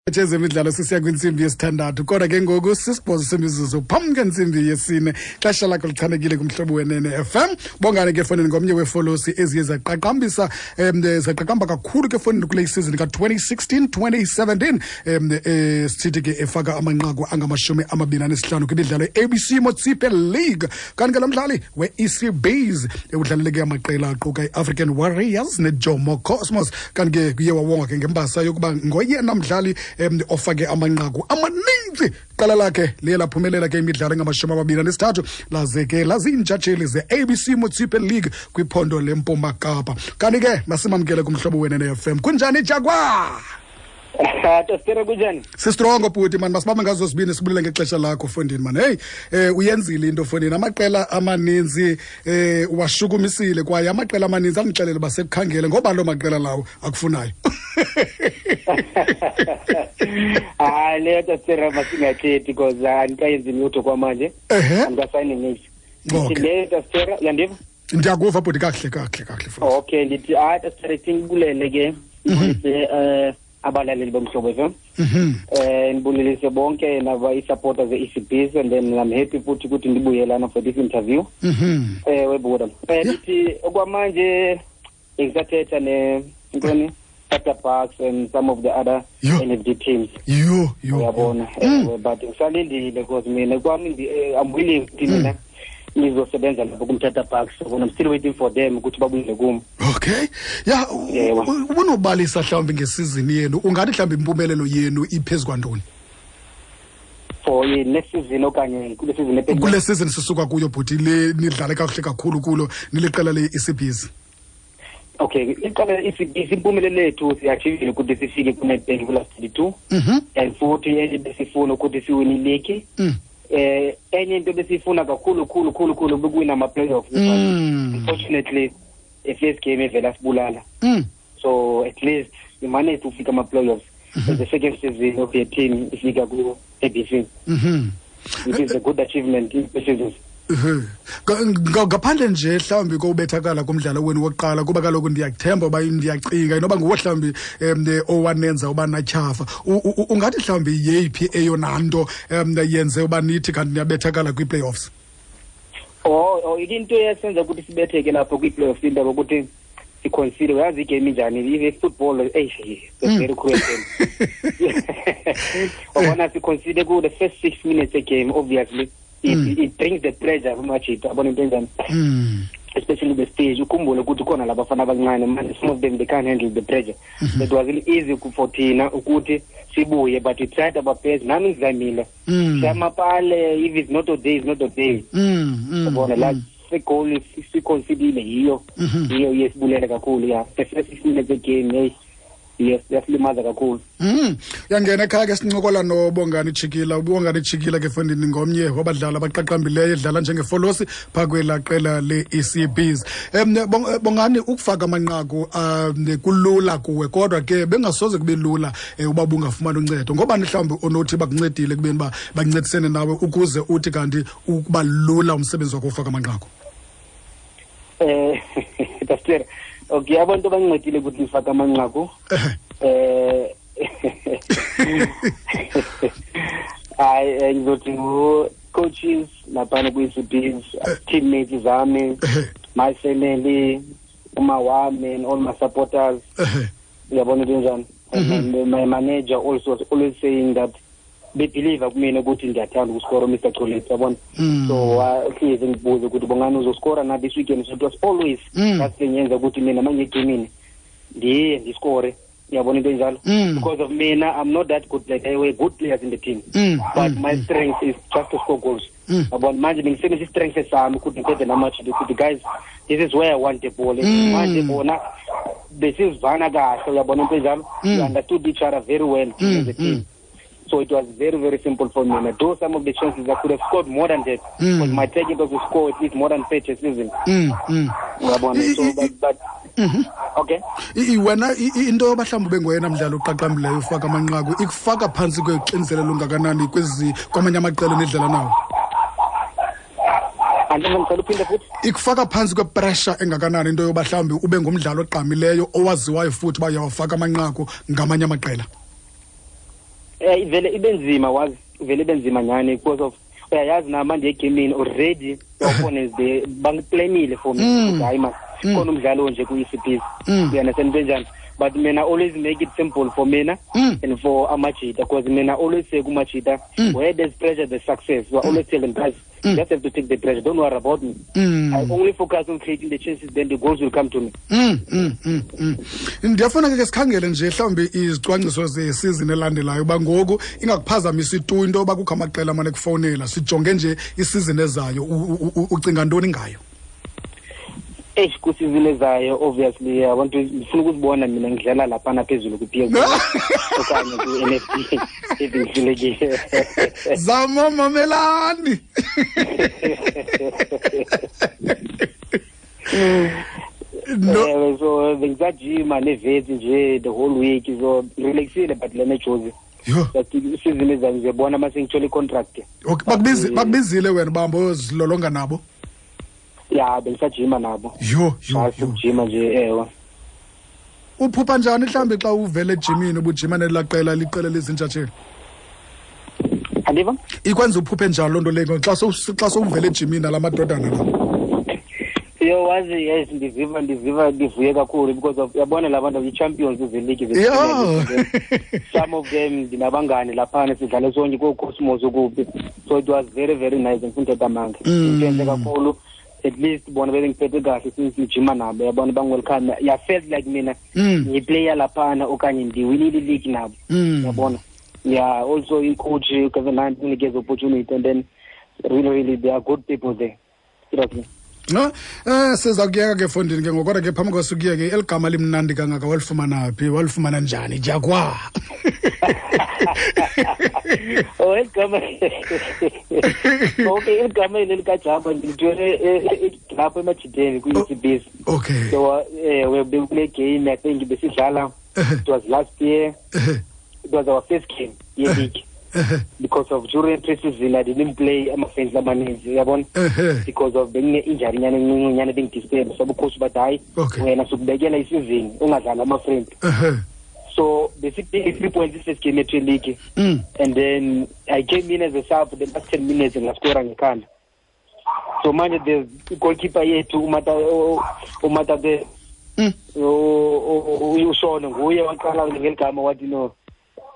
Ezemidlalo sisiya kwintsimbi yesithandathu, kodwa ke ngoku 8 semizuzu phambi kwentsimbi yesine. Xesha lakho lichanekile kumhlobo wenene FM. Bongane ke fonini ngomnye weefolosi eziye zaqaqambisa zaqaqamba kakhulu ke fonini kule season ka-2016 2017, sithi ke efaka amanqaku angama-25 kwimidlalo ye-ABC Motsepe League. Kanti ke lo mdlali we-EC Bees udlalele ke amaqela aquka i-African Warriors neJomo Cosmos. Kanti ke kuye wawonga ke ngembasa yokuba ngoyena mdlali ofake amanqaku amaninzi. Qala lakhe liye laphumelela ke imidlalo engama-23, laze ke laziintshatsheli ze-ABC Motsepe League kwiphondo leMpuma Kapa. Kanti ke masimamkele kumhlobo wenene FM. Kunjani, Jaguar? Tostere, kunjani? Sistrongo bhuti mani, masibambe ngazo zibini, sibulele ngexesha lakho fondini mani. Hey, uyenzile into fondini, amaqela amaninzi washukumisile, kwaye amaqela amaninzi andixelele uba sekukhangele ngoba loo maqela lawo akufunayo. Hayi, leyo Tostere masingathethi because andikayenzi lutho kwamanje. Andikasayini niks. Ndithi leyo Tostere, uyandiva? Ndiyakuva bhuti, kakuhle kakuhle kakuhle futhi. Okay, ndithi hayi Tostere, singibulele ke. Abalaleli bomhlobo FM. Ndibulelise bonke naba i-supporters ze-ECBs, and then I'm happy futhi ukuthi ndibuye lana for this interview. Webuda. Ndithi okwamanje ngisathetha ne ntoni Tata Bucks and some of the other NFD teams. Yo yo. Uyabona. But ngisalindile because mina kwami I'm willing ukuthi mina ngizosebenza lapho kumthatha Bucks, so I'm still waiting for them ukuthi babuyele kum. Okay. Ya, ubunobalisa mhlawumbi ngesizini yenu, ungathi mhlawumbi impumelelo yenu iphezu kwantoni? For next season okanye kule season ephelileyo? Kule season sisuka kuyo bhuti, le nidlale kakuhle kakhulu kulo niliqela le-ECBs. Okay, iqala ECBs, impumelelo yethu siyachievile ukuthi sifike ku-Nedbank ku-last 32. And futhi enye besifuna ukuthi siwine iligi. Enye into besifuna kakhulu khulu khulu khulu bekuwina ama-playoffs. Unfortunately, i-first game evela sibulala. So at least we managed to fika ama-playoffs. The second season of the team ifika ku-ABC. It is a good achievement in the season. Ngaphandle nje mhlawumbi kowubethakala kumdlalo wenu wokuqala, kuba kaloku ndiyakuthemba uba ndiyacinga inoba nguwo mhlawumbi owanenza uba natyhafa, ungathi mhlawumbi yeyiphi eyona nto yenze uba nithi kanti niyabethakala kwii-playoffs? Oh, into eyasenza ukuthi sibetheke lapho kwii-playoffs, into yokuthi siconcede. Uyazi igame injani, i-football, eish, very cruel game. Wabona siconcede ku the first 6 minutes game, obviously it brings the pressure kumajita, yabona into enjani, especially the stage. Ukhumbule ukuthi khona labafana abancane manje, some of them they can't handle the pressure. It wasn't easy for thina ukuthi sibuye, but we tried our best. Nami ngizamile siyamapale, if it's not a day, it's not a day. Yabona la goal siconcedile, yiyo yiyo yesibulele kakhulu. Ya, the first 6 minutes of game, hey, yes, yasilimaza kakhulu. Yangena ekhaya ke sincokola noBongani Chikila. UBongani Chikila ke fondini ngomnye wabadlali abaqaqambileyo, edlala njengefolosi phaa kwelaa qela le-ECBs. Bongani, ukufaka amanqaku kulula kuwe, kodwa ke bengasoze kube lula uba bungafumani uncedo. Ngobani mhlawumbi onothi bakuncedile kubeni uba bancedisene nawe ukuze uthi kanti ukuba lula umsebenzi wakho ufaka amanqaku? Pastor, okay, abantu abancedile ukuthi ngifake amanqaku. Hayi, ngizothi ngu-coaches laphana kwi-ECBs, teammates zami, my family, uma wami and all my supporters. Uyabona into enjani? And my manager also was always saying that they believe kumina ukuthi ngiyathanda ukuskora, Mr Cholet, yabona. So hlezi ngibuze ukuthi Bongani uzoskora na this weekend. So it was always that thing yenza ukuthi mina mangiyegemini ndiye ndiskore, uyabona into enjalo. Because of mina, I'm not that good, like I were good players in the team, but my strength is just to score goals. Yabona manje bengisebenzisa i-strength sami ukuthi ngithethe namajita ukuthi guys, this is where I want the ball. Manje bona besizivana kahle, uyabona into enjalo. We understood each other very well as a team. So it was very, very simple for me. And though some of the chances I could have scored more than that, because my target was to score at least more than 30 season. So, but okay. Wena, into yoba mhlawumbi ube ngoyena mdlali oqaqambileyo ufaka amanqaku ikufaka phantsi kwexinzelelo lungakanani kwezi kwamanye amaqela enidlala nawo? Andifuna uphinde futhi. Ikufaka phantsi kwepressure engakanani into yoba mhlawumbi ube ngumdlali ogqamileyo owaziwayo futhi uba uyawafaka amanqaku ngamanye amaqela? Ivele ibe nzima, wazi ivele ibe nzima nyhani, because of uyayazi nama ndiye egemini already, the opponents they bangiplanile for me ukuthi hayi man, khona umdlalo nje ku-ECPs, you understand into enjani? But mina always make it simple for mina and for amajita, because mina always say kumajita, where there's pressure there's success. So I always tell them, guys, you just have to take the pressure, don't worry about me. I only focus on creating the chances, then the goals will come to me. Ndiyafuna ke sikhangele nje mhlawumbi izicwangciso zesizini elandelayo, uba ngoku ingakuphazamisi tu into yoba kukho amaqela amane kufowunela, sijonge nje isizini ezayo, ucinga ntoni ngayo? Eish, kwisizini ezayo obviously I want to, ndifuna ukuzibona mina ngidlala laphana phezulu kwi-PSL okanye kwi-NFD if ngihlulekile. Zama mamelani. No. So bengisajima nevetsi nje the whole week, so relaxile, but lena jozi, but isizini ezayo ngizobona mase ngithole i-contract. Okay, bakubizile wena bambo uyozilolonga nabo? Ya, bengisajima nabo. Yho. Ukujima nje, ewe. Uphupha njani mhlawumbi xa uvele ejimini ubujima nelaa qela liqela lezintshatsheli? Andiva? Ikwenza uphuphe njani loo nto leyo xa sowuvele ejimini nala madodana la? Yo, wazi, yes, ndiziva ndivuye kakhulu because of uyabona la bantu i-champions ze-league. Some of them ndinabangani laphana, sidlale sonke koo-Cosmos ukuphi, so it was very very nice. Ngifuna uthetha amanga, into kakhulu. At least bona bebengiphethe kahle since ngijima nabo, yabona, bangwelcome. Ya, felt like mina ngiplayer laphana okanye ndiwinile i-league nabo, yabona. Yeah, also i-coach uGavin Hunt unikeze opportunity, and then really really there are good people there, seriously. No, siza kuyeka ke fondini ke ngoku, kodwa ke phambi kwasukuyeke, eli gama limnandi kangaka walifumana phi, walifumana njani, Jaguar? Oh, igama, okay, igama eli likaJamba ndilithwele lapho emajideni kwi-ECBs. So bekule game, I think besidlala, it was last year, it was our first game ye-league, because of during pre-season I didn't play ama-friendly amaninzi, uyabona, because of bengine-injury nyana encinci nyana bengidisturb, so ucoach bathi hayi, wena sukubekela isizini ungadlali ama-friendly. So basically 3 points first game yethu league, and then I came in as a sub the last 10 minutes ngaskora ngekhanda. So manje the goalkeeper yethu umata the ushona nguye waqala ngeligama wathi no,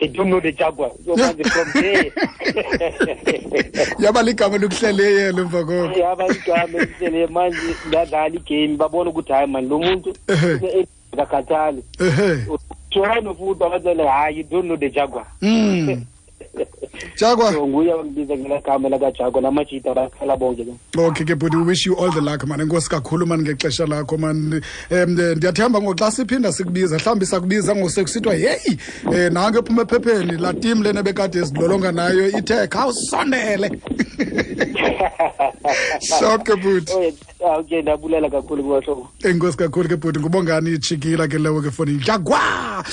they don't know the Jaguar. So manje from there yaba ligama lokuhleleye emva koko. Yaba igama elihleleye, manje ngadlala igame babona ukuthi hayi man, lo muntu akakhathali. Tshwana futhi abatsele hayi, you don't know the Jaguar. Jaguar. So nguye wangibiza ngelagama lakaJaguar, namajita bakhala bonke. Okay ke bhuti, we wish you all the luck man. Enkosi kakhulu man ngexesha lakho man. Ndiyathemba ngoku xa siphinda sikubiza, mhlawumbi sakubiza ngosekusithiwa hey, nange ephuma ephepheni la team lena bekade ezilolonga nayo ithe khawusondele. Sharp ke bhuti. Okay, ndabulela kakhulu kubahlobo. Enkosi kakhulu ke bhuti, ngubongani Chikila ke lewo ke foni. Jaguar.